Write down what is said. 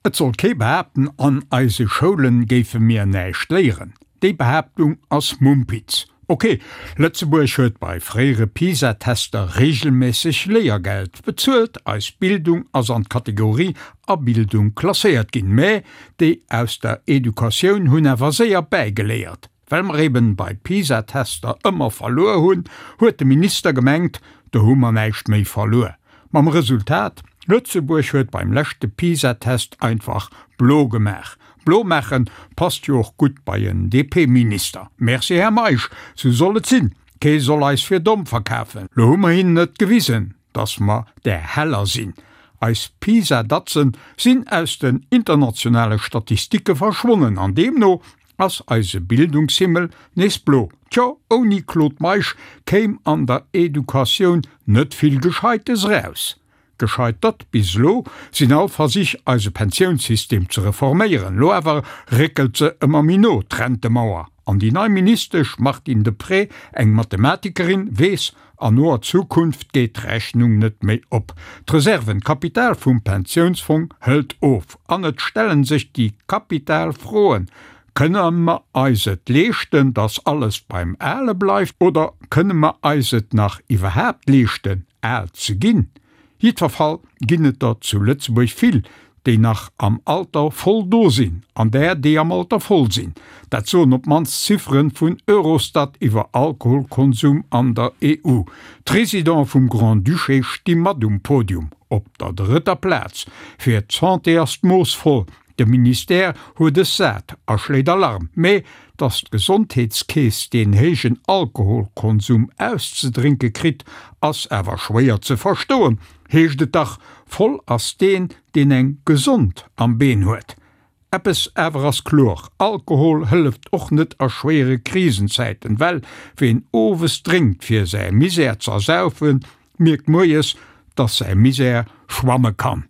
Et soll kee behaapten, an eise Schoulen géife mir näischt léieren. Déi Behaaptung ass Mumpitz. Ok, Lëtzebuerg huet bei fréiere PISA-Tester reegelméisseg Léiergeld bezuelt, eis Bildung ass an d'Kategorie A-Bildung klasséiert ginn, mä déi aus der Educatioun hunn awer séier bäigeléiert. Well mer eben bei PISA-Tester ëmmer verluer hunn, huet de Minister gemengt, do hu mer näischt méi verluer. Mam Resultat, Lëtzebuerg huet beim leschte PISA-Test einfach blo gemaach. Blo maachen passt jo och gutt bei en DP-Minister. Merci Här Meisch, sou soll et sinn. Kee soll eis fir domm verkafen. Lo hu mer hinnen et gewisen, dass mer där heller sinn. Eis PISA-Datzen sinn aus den internationale Statistike verschwonnen an deemno ass eise Bildungshimmel nees blo. Tjo, ouni Claude Meisch kéim an der Educatioun net vill Gescheites eraus. Gescheitert bis elo sinn all Versich eise Pensiounssystem ze reforméieren. Lo awer réckelt se ëmmer méi no, d'Rentemauer. An déi nei Ministesch Martine Deprez, eng Mathematikerin, weess, an noer Zukunft geet d'Rechnung net méi op. D'Reserven, d'Kapital vum Pensiounsfong hëlt of. An et stellen sech déi kapital Froen, Kënne mer eis et leeschten, datt alles beim Ale bleift, oder kënne mer eis et nach iwwerhaapt leeschten, al ze ginn? Jiddwerfall ginn et der zu Lëtzebuerg vill, déi nach am Alter voll do sinn, an där, déi am Alter voll sinn. Dat soen op d'mannst d'Ziffere vun Eurostat iwwer Alkoholkonsum an der EU. D'Residente vum Grand-Duché sti mat um Podium, op der drëtter Plaz. Fir d'Santé ass d'Mooss voll, De Ministère huet es sat a schléit Alarm. Mee datt d'Gesondheetskeess deen héijen Alkoholkonsum auszedrénke kritt, ass awer schwéier ze verstoen, heescht et dach, voll ass deen, deen eng gesond am Been huet. Eppes awer ass kloer, Alkohol hëlleft och net a schwéiere Krisenzäiten, well ween owes drénkt fir säi Misär z'ersaufen, mierkt moies, datt säi Misär schwamme kann.